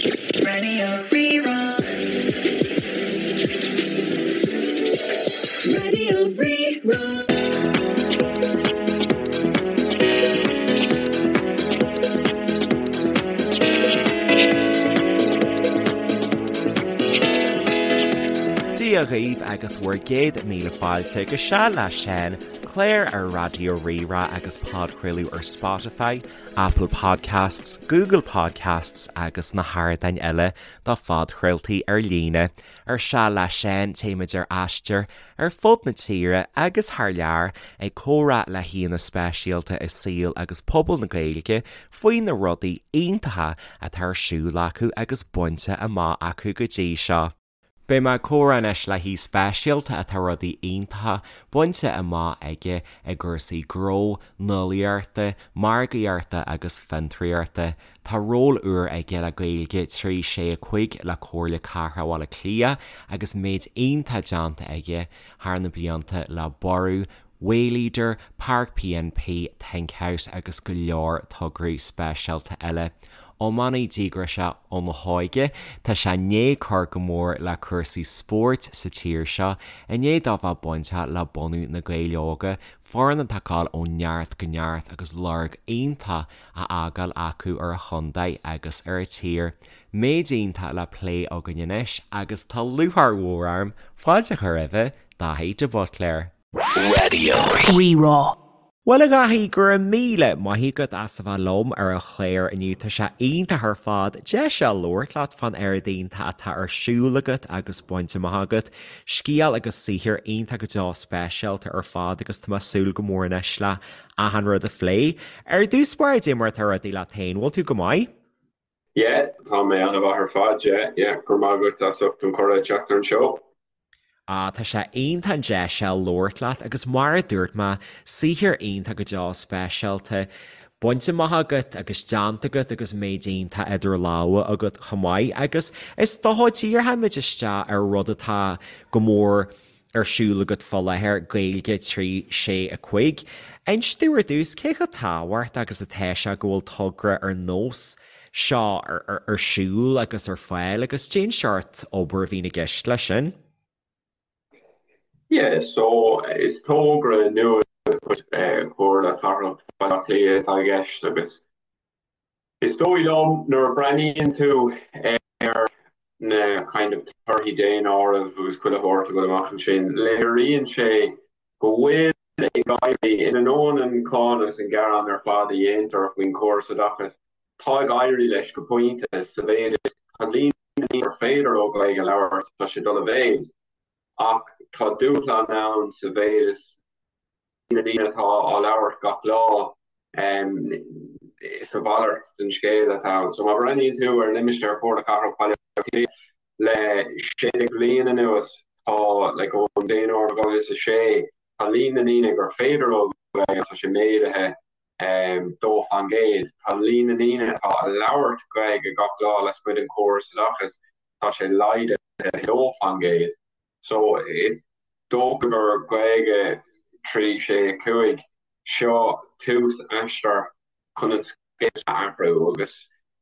Radio Rí-Rá. Radio Rí-Rá. Dia dhaoibh agus bhur gcéad míle fáilte go Seal le Seán, clár ar Raidió Rí-Rá agus podchraoladh ar Spotify, Apple Podcasts, Google Podcasts agus na hardáin eile do phodchraoltaí ar líne. Ar Seal le Seán, téimid ar aistear ar fud na tíre agus thar lear ag comhrá le haíonna speisialta i saol agus pobal na Gaeilge faoi na rudaí iontacha atá ar siúl acu agus bainte amach acu go dtí seo. Beidh mé ag comhrá anois le haoi speisialta atá rudaí iontacha bainte amach aige i gcúrsaí gnó, nuálaíochta, margaíochta agus fiontraíochta. Tá ról úr aige le Gaeilge 3 6 5 le Comhairle Cathrach Bhaile Átha Cliath agus méid iontach déanta aige thar na blianta le Borradh, Wayleadr, Páirc PNP, Think House agus go leor tograí speisialta eile. Iománaí díograiseach óna hóige, tá sé i ndiaidh cur go mór le cúrsaí spóirt sa tír seo i ndiaidh dó bheith bainteach le bunú Na Gaeil Óga, foireann atá ag gabháil ó neart go neart agus lorg iontach á fhágáil acu ar an chontae agus ar an tír. Méid iontach le plé againn anois agus tá lúcháir mhór orm fáilte a chur roimhe, Daithí de Buitléar. Radio. Rí-Rá. Bhuel a Dhaithí, go raibh míle maith agat as a bheith liom ar an chlár inniu. Tá sé iontach ar fad deis a labhairt leat fán oiread iontach atá ar siúl agat agus bainte amach agat. Scéal agus saothar iontach go deo speisialta ar fad agus tá mé ag súil go mór anois le achan rud a phlé. Ar dtús báire, cad é mar atá rudaí leat féin, bhfuil tú go maith? Yeah, tá mé an-mhaith ar fad, yeah, yeah, go raibh maith agat as ucht an cuireadh teacht ar an seó. Ah, tá sé iontach an deis seo labhairt leat agus mar a dúirt mé, saothar iontach go deo speisialta bainte amach agat agus déanta agat agus méid iontach idir lámha agat chomh maith agus is dócha díreoimid isteach ar rud atá go mór ar siúl agat fá láthair, Gaeilge 3, 6, 5. Inis domh ar dtús, cé chomh tábhachtach agus atá sé go bhfuil togra ar nós seo ar siúl agus ar fáil agus cén seort obair a bhíonn i gceist leis sin? Yeah, so is togra nua de chuid Chomhairle Cathrach Bhaile Átha Cliath atá i gceist agus Is dóigh liom nuair a breathnaíonn tú ar na kind of torthaí daonáirimh agus chuile shórt ag dul amach ansin, léiríonn sé go bhfuil ag éirí, in ainneoin an cáineadh agus an gearán ar fad a dhéantar faoin chóras oideachais, tá ag éirí leis go pointe sa mhéid is tá líon na ndaoine gur féidir leo Gaeilge a labhairt, tá sé ag dul i mhéad ach tá dúshlán ann sa mhéid is na daoine atá á labhairt gach lá, is a mhalairt den scéal atá ann. So má bhreathnaíonn tú ar limistéar Chomhairle Cathrach Bhaile Átha Cliath le 16 bhliain anuas, tá, like, ón daonáireamh 2006, tá líon na ndaoine gur féidir leo Gaeilge, tá sé méadaithe 2%. Tá líon na ndaoine atá a labhairt Gaeilge gach lá lasmuigh den chóras oideachais, tá sé laghdaithe 2%. So is dócha gur Gaeilge 3, 6, 5, seo tús aistear chun an scéal a athrú agus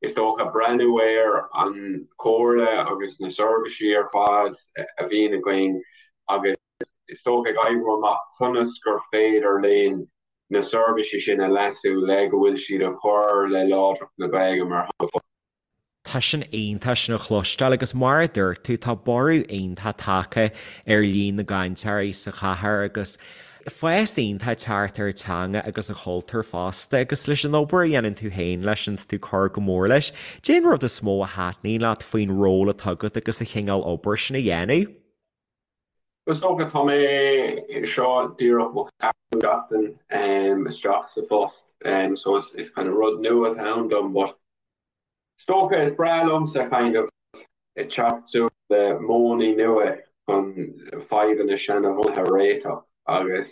is dócha breathnú ar an chomhairle agus na seirbhísí ar fad a bhíonn againn agus is dócha ag oibriú amach conas gur féidir linn na seirbhísí sin a leasú le go bhfuil siad ag cur le láidreacht na Gaeilge mar theanga. Tá sin iontach sin a chloisteáil agus mar a dúirt tú tá borradh iontach tagtha ar líon na gcainteoirí sa chathair agus fás iontach ag teacht ar an teanga agus an chultúr fosta agus leis an obair a dhéanann tú féin leis sin tá tú ag cur go mór leis. Cén rud is mó a thaitníonn leat faoin ról atá agat agus an chineál obair sin a dhéanamh? Is dócha tá mé seo díreach mo cheathrú seachtain isteach sa phost so is kind of rud nua atá ann dom but Is dócha, is breá liomsa kind of ag teacht suas le modhanna nua chun fadhbanna seanabhunaithe a réiteach agus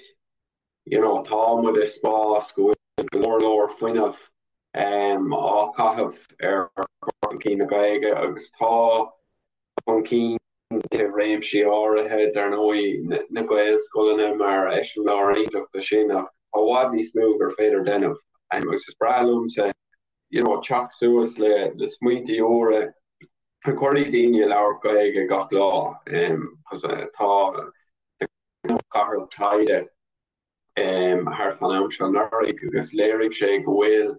you know tá muid i spás go bhfuil go leor leor fuinneamh á chaitheamh ar chur chun cinn na Gaeilge agus tá chun cinn i réimsí áirithe, dar ndóigh na Gaelscoileanna mar eiseamláir iontach de sin ach tá i bhfad níos mó gur féidir déanamh agus is breá liomsa you know teacht suas le le smaointe úra. Cuirfidh daoine ag labhairt Gaeilge gach lá cos tá cathair taighde thart fán am seo anuraidh agus léirigh sé go bhfuil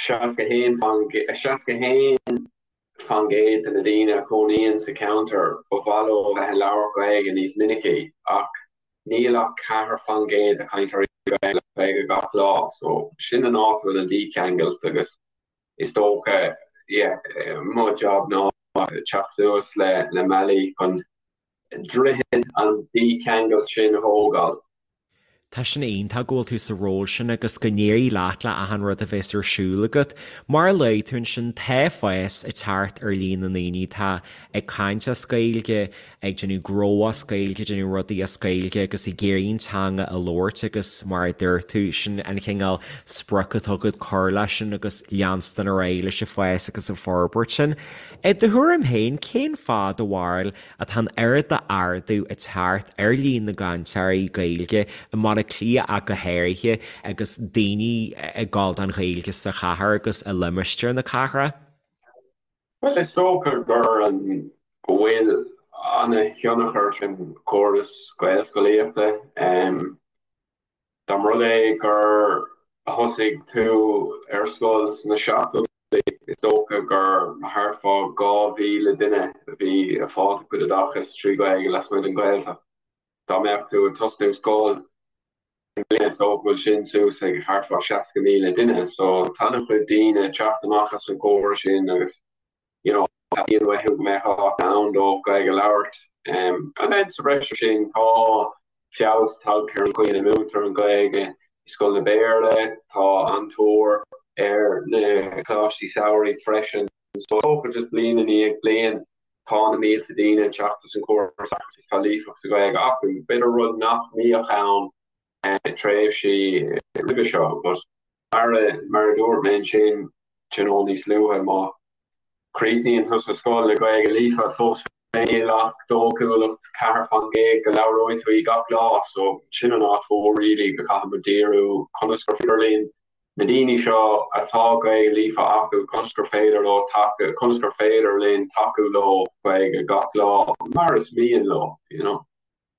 61 faoin gcéad de na daoine a chónaíonn sa cheantar ba mhaith leo a bheith ag labhairt Gaeilge níos minicí ach níl ach 4 faoin gcéad de chainteoirí Gaeilge gach lá so sin an áit a bhfuil an dícheangailt agus is dócha yeah mo job ná teacht suas le le mbealaí chun droichead an dícheangailt sin a thógáil. Tá sin iontach go bhfuil tú sa ról sin agus go n-éirí leat le achan rud a bheas ar siúl agat. Mar a luaigh tú ansin, tá fás ag teacht ar líon na ndaoine atá ag caint as Gaeilge, ag déanamh gnó as Gaeilge, ag déanamh rudaí as Gaeilge agus ag iarraidh an teanga a labhairt agus mar a dúirt tú, sin an chineál sprioc atá agat cur leis sin agus leanstan ar aghaidh leis an bhfás agus an forbairt sin. I do thuairim féin, cén fáth do bharúil atá an oiread d'ardú ag teacht ar líon na gcainteoirí Gaeilge i mBaile Átha Cliath ach go háirithe agus daoine ag gabháil don Ghaeilge sa chathair agus i limistéar na cathrach? Bhuel, is dócha gur an go bhfuil ana-thionchar ag an gcóras Gaelscolaíochta. Dá mba rud é gur thosaigh tú ar scoil sna seachtóidí, is dócha gur thart fá 2,000 duine a bhí ag fáil a gcuid oideachais trí Ghaeilge lasmuigh den Ghaeltacht. Dá mbeadh tú ag tosnú scoil i mbliana, is dócha go bhfuil sin suas ag thart fá 60,000 duine. So tá an-chuid daoine ag teacht amach as an gcóras sin agus you know, teastaíonn uathu go mbeadh áit ann dóibh Gaeilge a labhairt. And then sa bhreis air sin tá feabhas tagtha ar an gcaoi ina múintear an Ghaeilge i scoileanna Béarla, tá an-tóir ar na coláistí samhraidh freisin. So is dócha just bliain i ndiaidh bliain tá na mílte daoine ag teacht as an gcóras agus tá líofacht sa Ghaeilge acu, b'fhéidir rud nach mbíodh ann tréimhsí roimhe seo. But mar a mar a dúirt mé ansin you know níos luaithe, má chríochnaíonn tú sa scoil le Gaeilge líofa fós féin níl ach dóchúlacht 4% go labhróidh tú í gach lá so sin an áit mhór really go gcaithfidh muid díriú conas gur féidir linn na daoine seo atá Gaeilge líofa acu conas gur féidir leo tacú conas gur féidir linn tacú leo Gaeilge gach lá mar is mian leo you know.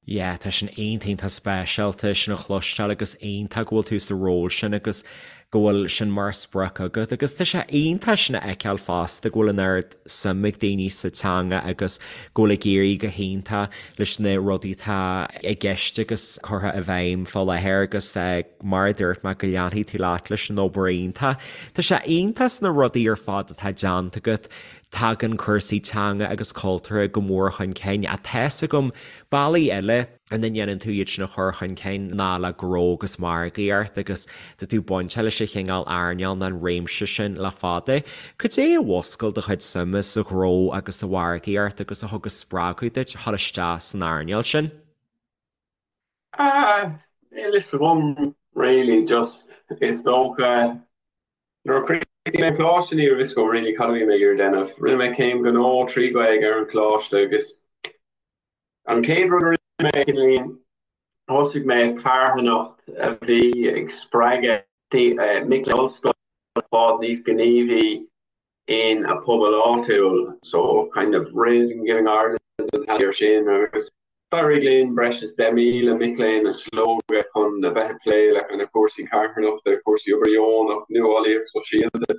Yeah, tá sin iontach iontach speisialta sin a chloisteáil agus iontach go bhfuil tú sa ról sin agus go bhfuil sin mar sprioc agat agus tá sé iontach sin a fheiceáil fosta go bhfuil an oiread suim ag daoine sa teanga agus go bhfuil ag éirí go hiontach leis na rudaí atá i gceist agus curtha i bhfeidhm fá láthair agus mar a dúirt mé go leanfaidh tú leat leis an obair iontach. Tá sé iontach sna rudaí ar fad atá déanta agat Tagann cúrsaí teanga agus cultúrtha go mór chun cinn ach tá's agam bealaí eile ina ndéanann tú iad sin a chur chun cinn ná le gnó agus margaíocht agus tá tú bainteach leis an chineál earnáil nó an réimse sin le fada. Cad é a mhúscail do chuid suime sa ghnó agus sa mhargaíocht agus a thug an spreagadh duit a dhul isteach san earnáil sin? Ah, níl fhios agam really, just is dócha Nuair a chríochnaigh mé an coláiste ní raibh fhios agam really cad a bhí mé ag iarraidh déanamh. Rinne mé céim ghnó trí Ghaeilge ar an choláiste agus an chéad rud a rinne mé cineáilín thosaigh mé carthanacht a bhí ag spreagadh mic léinn ollscoile fáil níos gníomhaí in a pobal áitiúil so kind of Raising Giving Ireland an t-ainm air sin agus d'éirigh linn breis is 10,000 mic léinn a slógadh chun a bheith ag plé le kind of cúrsaí carthanachta, cúrsaí obair dheonach, nuálaíocht sóisialta,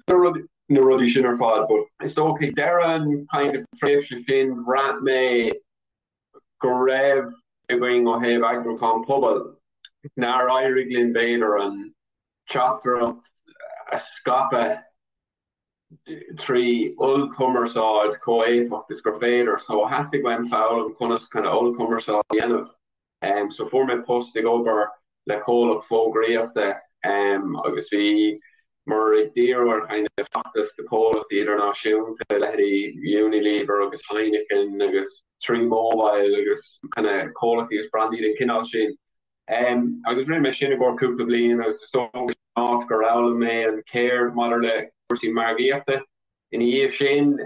na rudaí sin ar fad but is dócha ag deireadh an kind of tréimhse sin bhraith mé go raibh againn ó thaobh eagrúchán pobail nár éirigh linn b'fhéidir an teachtaireacht a scaipeadh trí ollchumarsáid chomh éifeacht is gur féidir. So theastaigh uaim foghlaim conas kind of ollchumarsáid a dhéanamh. Um, so fuair mé post ag obair le comhlacht fógraíochta um, agus bhíomar ag díriú ar kind of feachtais do chomhlachtaí idirnáisiúnta, leithéidí Unilever agus Heineken agus Three Mobile agus kind of comhlachtaí agus brandaí den chineál sin. Agus rinne mé sin i gcomhair cúpla bliain agus is dócha áit gur fhoghlaim mé an cheird maidir le cúrsaí margaíochta. Ina dhiaidh sin,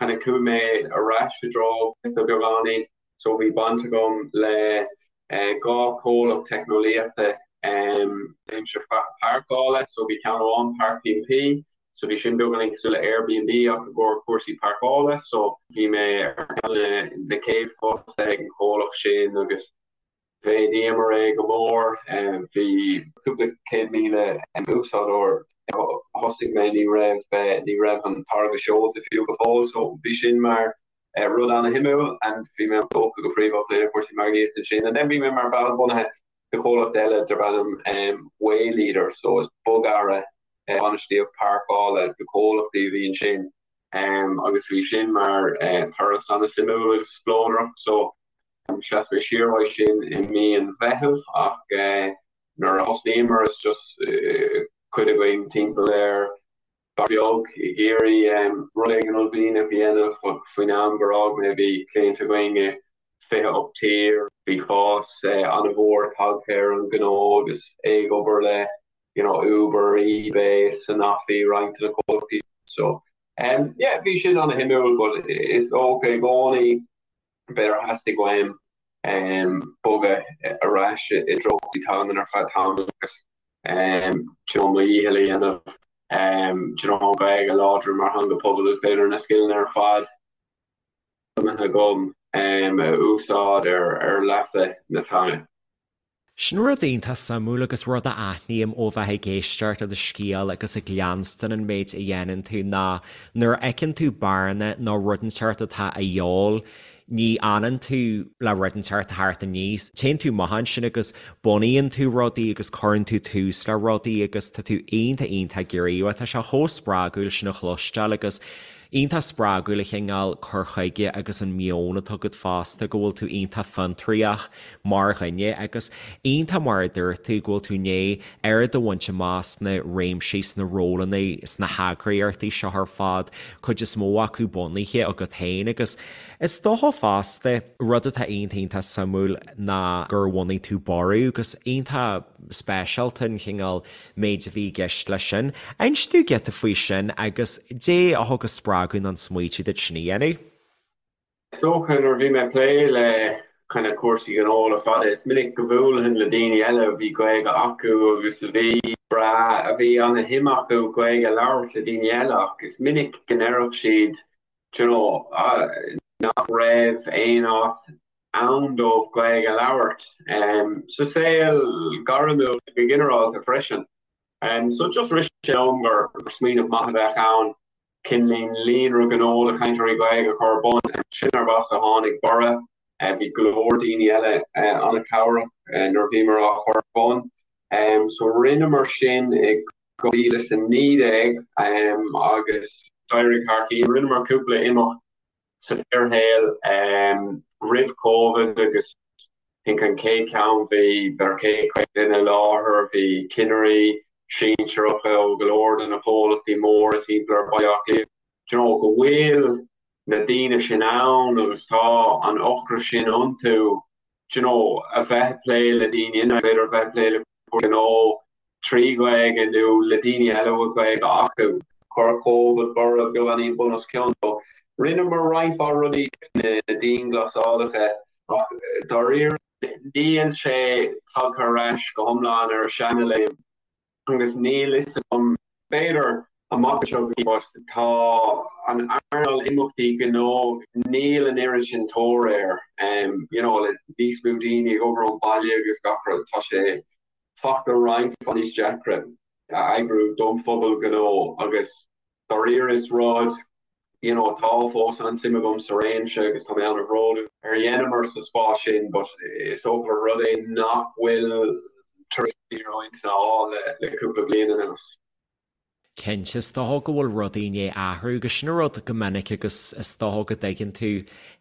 kind of chuaigh mé ar ais i dtreo beagáinín so bhí baint agam le dhá chomhlacht teicneolaíochta réimse páirceála, so bhí ceann amháin Park P&P. So bhí sin beagáinín cosúil le Airbnb ach i gcomhair cúrsaí páirceála. So bhí mé ar cheann de na chéad fostaithe ag an chomhlacht sin agus mhéadaíomar é go mór. Bhí cúpla 100,000 úsáideoir. Thosaigh mé ní raibh ní raibh an táirge seolta fiú go fóill so bhí sin mar rud ana-shuimiúil and bhí mé tógtha go príomha le cúrsaí margaíochta ansin. And then bhí mé mar bhall bunaithe de chomhlacht eile darb ainm Wayleadr so is bogearra bainistíocht páirceála do chomhlachtaí a bhí ansin agus bhí sin mar turas ana-suimiúil agus spleodrach so sheas mé siar uaidh sin i mí an Mheithimh ach nuair a thosnaíomar is just cuid againn timpeall ar beag ag iarraidh rud éigin uaillmhianach a dhéanamh ach faoin am gur fhág mé bhí cliaint againn i 28 tír, bhí fás an-mhór tagtha ar an ghnó agus é ag obair le you know Uber, eBay, Sanofi, roinnt de na comhlachtaí so yeah bhí sin an-shuimiúil but is dócha i gcónaí b'fhéidir theastaigh uaim bogadh ar ais i dtreo teanga ar feadh tamaill agus you know mo dhícheall a dhéanamh you know an Ghaeilge a láidriú mar theanga pobail is b'fhéidir na scileanna ar fad agam a úsáid ar leasa na teanga. Sin rud iontach suimiúil agus rud a aithním ó bheith ag éisteacht le do scéal agus ag leanstan an méid a dhéanann tú ná nuair a fheiceann tú bearna nó rud inteacht atá a dhíobháil, ní fhanann tú le rud inteacht a theacht aníos. Téann tú amach ansin agus bunaíonn tú rudaí agus cuireann tú tús le rudaí agus tá tú iontach iontach gníomhach. Tá sé chomh spreagúil sin a chloisteáil agus Iontach spreagúil an chineál cur chuige agus an meon atá agat fosta, go bhfuil tú iontach fiontraíoch mar dhuine agus iontach mar a dúirt tú, go bhfuil tú i ndiaidh oiread a bhaint amach sna réimsí, sna rólanna, sna heagraíochtaí seo ar fad, cuid is mó acu bunaithe agat féin agus is dócha fosta, rud atá iontach iontach suimiúil ná gur bhunaigh tú Borradh agus iontach speisialta an chineál méid a bhí i gceist leis sin. Inis domh giota faoi sin agus dé a thug an spreagadh nó an smaoitiú duit sin a dhéanamh. Is dócha nuair a bhí mé ag plé le kind of cúrsaí gnó le fada, is minic go mbuailfinn le daoine eile a bhí Gaeilge acu agus a bhí breá, a bhí ana-shuim acu Gaeilge a labhairt le daoine eile ach is minic go ndéarfadh siad, do you know, nach raibh aon áit ann dóibh Gaeilge a labhairt sa saol gairmiúil go ginearálta freisin. So just rith sé liom gur smaoineamh maith a bheadh ann cineál líonra gnó do chainteoirí Gaeilge a chur ar bun. Sin arb as a tháinig Borradh. Bhí go leor daoine eile an-chabhrach nuair a bhíomar á chur ar bun. So rinneamar sin i 2019 agus d'éirigh thar cinn. Rinneamar cúpla imeacht sa fhíorshaol roimh Covid agus I think an chéad cheann bhí b'fhéidir 150 duine i láthair, bhí cinnirí sinsearacha ó go leor de na comhlachtaí móra timpeall ar Bhaile Átha Cliath. Do you know, go bhfuil na daoine sin ann agus tá an ocras sin iontu, do you know, a bheith ag plé le daoine, b'fhéidir a bheith ag plé le gnó trí Ghaeilge nó le daoine eile a bhfuil Gaeilge acu. Chuir Covid borradh beagáinín bun os cionn. So rinneamar roinnt mhaith rudaí na dianghlasálacha ach dáiríre níl sé tagtha ar ais go hiomlán ar a seanléim. Agus níl fhios agam, b'fhéidir amach anseo go but tá an earnáil imeachtaí gnó, níl an oiread sin tóir air, you know, le níos mó daoine ag obair ón bhaile agus gach rud, tá sé fachta roinnt mhaith níos deacra a eagrú don phobal gnó agus Dáiríre is rud, you know, tá fós an-suim agam sa réimse agus tá mé an-bhródúil ar a dheineamar sa spás sin but is dócha gur rud é nach bhfuil tar éis roinnt a fháil le cúpla bliain anuas. Cinnte, is dócha go bhfuil rudaí i ndiaidh athrú agus sin an rud go minic agus is dócha go dtuigeann tú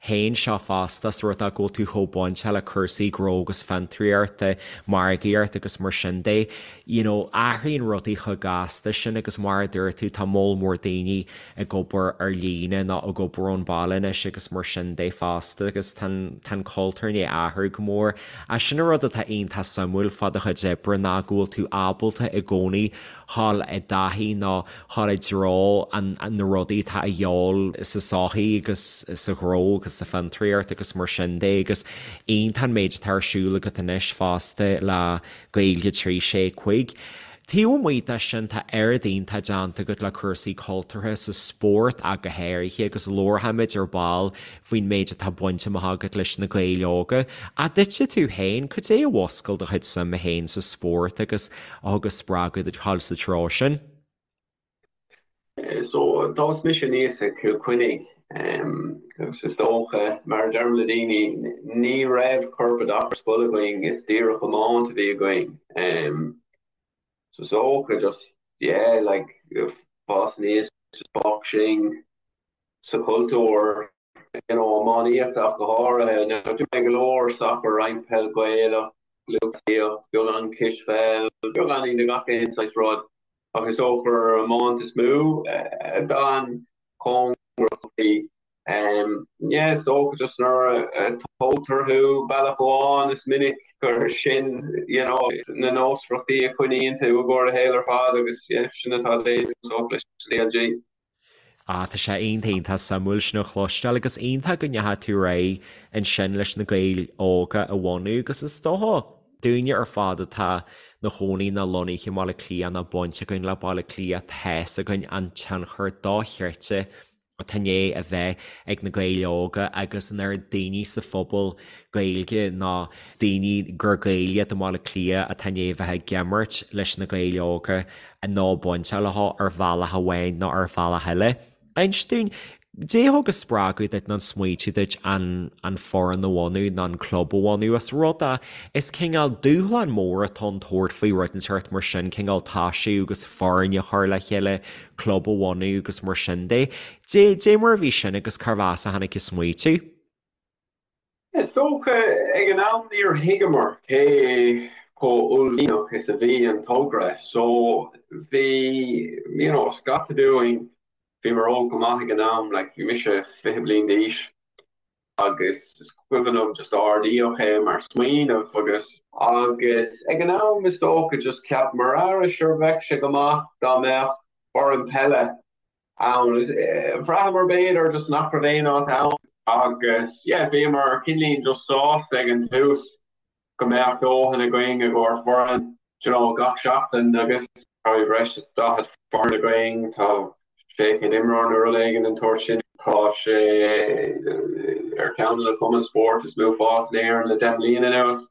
féin seo fosta, ós rud é go bhfuil tú chomh bainteach le cúrsaí gnó agus fiontraíochta, margaíocht agus mar sin de. You know, athraíonn rudaí chomh gasta sin agus mar a dúirt tú, tá moll mór daoine ag obair ar líne nó ag obair ón bhaile anois agus mar sin de fosta agus tá an, tá an cultúr i ndiaidh athrú go mór. Ach sin an rud atá iontach suimiúil fá do chuid oibre ná go bhfuil tú ábalta i gcónaí dhul i dtaithí nó dhul i dtreo an, na rudaí atá a dhíobháil sa sochaí agus sa ghnó agus sa fiontraíocht agus mar sin de agus iontach an méid atá ar siúl agat anois fosta le Gaeilge 3, 6, 5. Taobh amuigh de sin, tá oiread iontach déanta agat le cúrsaí cultúrtha sa spórt ach go háirithe agus labharfaimid ar ball faoin méid atá bainte amach agat leis na Gaeil Óga. Ach duitse tú féin, cad é a mhuscail do chuid suime féin sa spórt agus a thug an spreagadh duit dhul sa treo sin? So, d'fhás mise aníos i Cill Chainnigh agus is dócha, mar a deirim le daoine, ní raibh corpoideachas ar scoil againn, is díreach iomáint a bhí againn. So is dócha just, yeah, like, fás aníos, just boxing sa chultúr, you know, iománaíocht ach go háirithe. Now, d'imir mé go leor sacar, roinnt peil Gaelach, lúthchleasaíocht, beagán cispheil, beagáinín de gach aon saghas rud, ach is dócha gur iomáint is mó a d'fhan cóngarach dom. Yeah, is dócha just nuair a tógtar thú bealach amháin is minic gur sin, you know, na nósmhaireachtaí a choinníonn tú i gcomhair do shaoil ar fad agus yeah, sin atá déanta is dócha leis an CLG. Ah, tá sé iontach iontach suimiúil sin a chloisteáil agus iontach go ndeachaigh tú ar aghaidh ansin leis na Gaeil Óga a bhunú agus is dócha dúinne ar fad atá 'na chónaí nó lonnaithe i mBaile Átha Cliath nó baint againn le Baile Átha Cliath tá's againn an tionchar dochreidte atá i ndiaidh a bheith ag na Gaeil Óga agus an oiread daoine sa phobal Gaeilge nó daoine gur Gaeil iad i mBaile Átha Cliath atá i ndiaidh a bheith ag imirt leis na Gaeil Óga nó bainteach leo ar bhealach amháin nó ar bhealach eile. Inis dúinn, Dé a thug an spreagadh duit nó an smaoitiú duit an an foireann a bhunú nó an club a bhunú? Is rud é, is cineál dúshlán mór atá ann tabhairt faoi rud inteacht mar sin, cineál toisiú agus foireann a chur le chéile, club a bhunú agus mar sin de. Dé, dé mar a bhí sin agus cárbh as a tháinig an smaoitiú? Is dócha, ag an am níor thuigeamar cé chomh uaillmhianach is a bhí an togra so bhí, you know, scata dúinn, bhíomar óg go maith ag an am, like bhí mise 20 bliain d'aois agus is cuimhin liom just ardaíodh é mar smaoineamh agus, agus ag an am is dócha just cheapamar ara sure bheadh sé go maith dá mbeadh foireann peile ann. Bhraitheamar b'fhéidir just nach raibh aon áit ann agus yeah bhíomar cineáilín just sásta ag an tús go mbeadh dóthain againn i gcomhair foireann you know gach seachtain agus tá breis is 40 foireann againn, tá 600 imreoir nó rud éigin den tsórt sin. Tá sé ar cheann de na cumainn spóirt is mó fás in Éirinn le 10 mbliana anuas.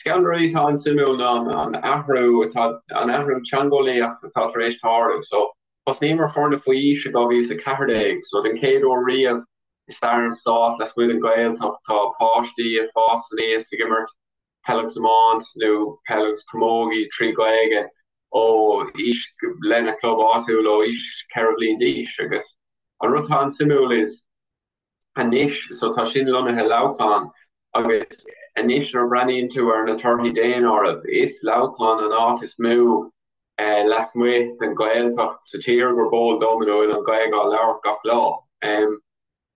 Ceann de na rudaí atá an-suimiúil ná an athrú atá an athrú teangeolaíoch atá tar éis tarlú. So Thosnaíomar foirne faoi aois i 2014, so den chéad uair riamh i stair an stáit lasmuigh den Ghaeltacht tá páistí ag fás aníos ag imirt peil agus iomáint nó peil agus camógaí trí Ghaeilge ó aois lena club áitiúil ó aois 4 bhliain d'aois agus an rud atá an-suimiúil is anois, so tá sin lonnaithe i Leamhcán agus anois nuair a breathnaíonn tú ar na torthaí daonáirimh, is Leamhcán an áit is mó lasmuigh den Ghaeltacht sa tír gurb eol dom ina bhfuil an Ghaeilge á labhairt gach lá.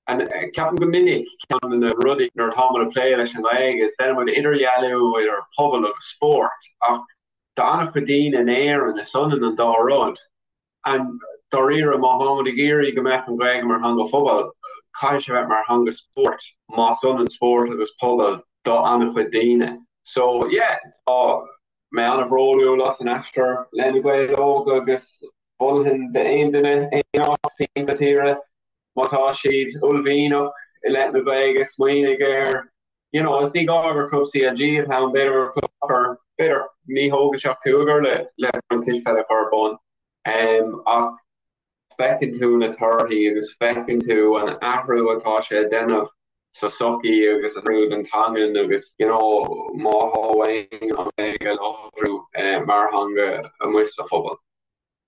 Ceapaim go minic ceann de na rudaí nuair atá muid ag plé leis an nGaeilge is déanann muid idirdhealú idir pobal agus spórt ach do an-chuid daoine in Éirinn is ionann an dá rud. And dáiríre, má táimid ag iarraidh go mbeadh an Ghaeilge mar theanga phobail, caithfidh sé bheith mar theanga spóirt, más ionann spórt agus pobal do an-chuid daoine. So, yeah, tá mé an-bhródúil as an aistear le Na Gaeil Óga agus mholfainn d'aon duine aon áit timpeall na tíre, má tá siad uaillmhianach i leith na Gaeilge, smaoinigh ar you know, is ní gá gur club CLG atá ann, b'fhéidir gur club sacair, b'fhéidir ní thógann sé ach cúigear le le foireann cispheile a chur ar bun, ach feiceann tú na torthaí agus feiceann tú an athrú atá sé a déanamh sa sochaí agus an athrú don teangain agus you know, má tá uainn an Ghaeilge a láidriú mar theanga amuigh sa phobal.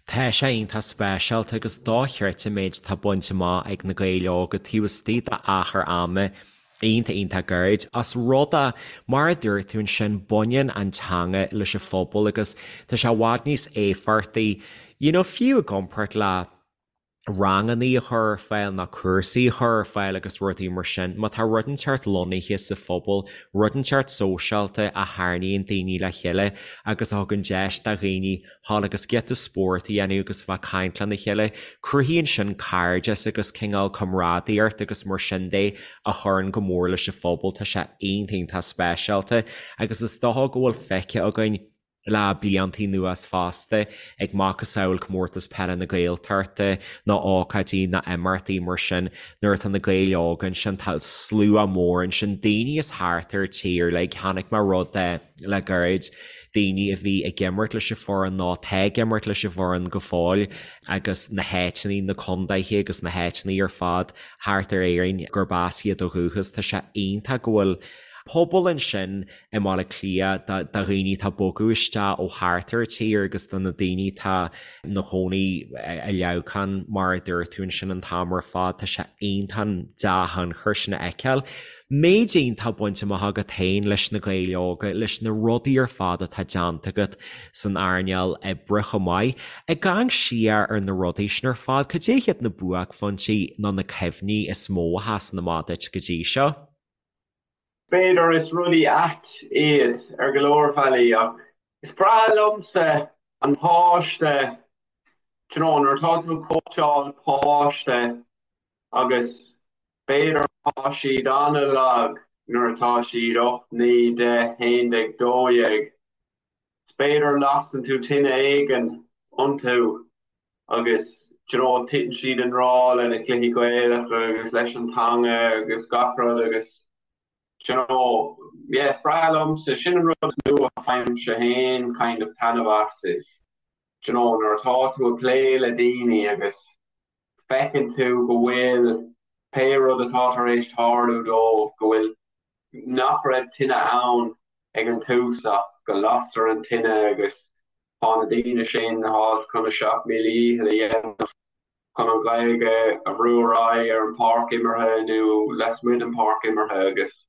Tá sé iontach speisialta agus dochreidte an méid atá bainte amach ag na Gaeil Óga taobh istigh d'achar ama iontach iontach gairid. Ós rud é, mar a dúirt tú ansin, baineann an teanga leis an phobal agus tá sé i bhfad níos éifeachtaí, you know, fiú i gcomparáid le rangannaí a chur ar fáil nó cúrsaí a chur ar fáil agus rudaí mar sin. Má tá rud inteacht lonnaithe sa phobal, rud inteacht sóisialta a tharraingíonn daoine le chéile agus a thugann deis do dhaoine dhul agus giota spóirt a dhéanamh agus a bheith ag caint lena chéile, cruthaíonn sin cairdeas agus cineál comrádaíocht agus mar sin de a chuireann go mór leis an phobal. Tá sé iontach iontach speisialta agus is dócha go bhfuil feicthe againn. Le blianta anuas fosta, ag macasamhail Comórtas Peile na Gaeltachta nó ócáidí nó imeachtaí mar sin, nuair atá na Gaeil Óga ansin, tá slua mór ansin, daoine as thart ar an tír uilig. Chonaic mé rud le gairid, daoine a bhí ag imirt leis an foireann nó atá ag imirt leis an bhfoireann go fóill agus na háiteanna, na contaetha agus na háiteanna ar fad thart ar Éirinn gurb as iad ó dhúchas. Tá sé iontach go bhfuil pobal ansin i mBaile Átha Cliath do dhaoine atá ag bogadh isteach ó thart ar an tír agus do na daoine atá ina gcónaí i Leamhcán mar a dúirt tú ansin an t-am ar fad. Tá sé iontach an dea-thionchar sin a fheiceáil. Méid iontach bainte amach agat féin leis na Gaeil Óga, leis na rudaí ar fad atá déanta agat san earnáil oibre chomh maith. Ag amharc siar ar na rudaí sin ar fad, cad é hiad na buaicphointí nó na cuimhní is mó a sheasann amach duit go dtí seo? B'fhéidir is rudaí ait iad ar go leor bealaí ach is breá liomsa an páiste, do you know, nuair atá tú ag cóitseáil páiste agus b'fhéidir tá siad an-lag nuair atá siad 8, 9, 10, 11, 12, is b'fhéidir lasann tú tine éigin iontu agus do you know titeann siad i ngrá le na cluichí Gaelacha agus leis an teanga agus gach rud agus do you know yeah is breá liomsa, sin an rud is mó a fhaighimse féin kind of taitneamh as is do you know nuair atá tú ag plé le daoine agus feiceann tú go bhfuil pé rud atá tar éis tarlú dóibh go bhfuil nach raibh tine ann ag an tús ach go lastar an tine agus tá na daoine sin atá chun a seacht míle dhícheall a dhéanamh chun an Ghaeilge a bhrú ar aghaidh ar an pháirc imeartha nó lasmuigh den pháirc imeartha agus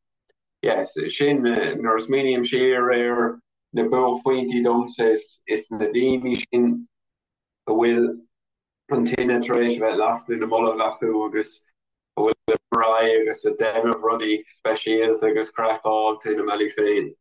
yes sin nuair a smaoiním siar ar na buaicphointí domsa is na daoine sin a bhfuil an tine tar éis a bheith lasta ina mbolg acu agus a bhfuil ag ar aghaidh agus ag déanamh rudaí speisialta agus craiceáilte ina mbealaí féin.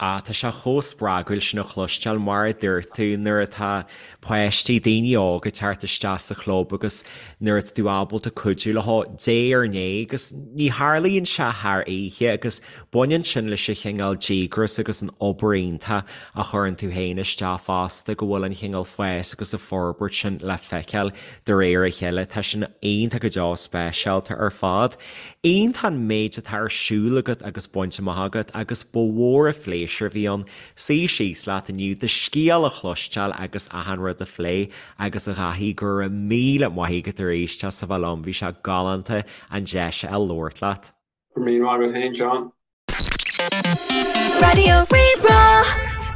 Ah, tá sé chomh spreagúil sin a chloisteáil, mar a dúirt tú, nuair atá páistí, daoine óga ag teacht isteach sa chlub agus nuair atá tú ábalta cuidiú leo diaidh ar ndiaidh agus ní tharlaíonn sé thar oíche agus Baineann sin leis an chineál díograis agus an obair iontach a chuireann tú féin isteach fosta, go bhfuil an chineál fás agus an forbairt sin le feiceáil de réir a chéile. Tá sin iontach go deo speisialta ar fad. Iontach an méid atá ar siúl agat agus bainte amach agat agus ba mhór an phléisiúr a bhí ann suí síos leat inniu, do scéal a chloisteáil agus achan rud a phlé agus a Dhaithí, go raibh míle maith agat arís as a bheith liom, bhí sé galánta an deis a fháil labhairt leat. Go raibh míle maith agat féin, Seán. Raidió Rí-Rá.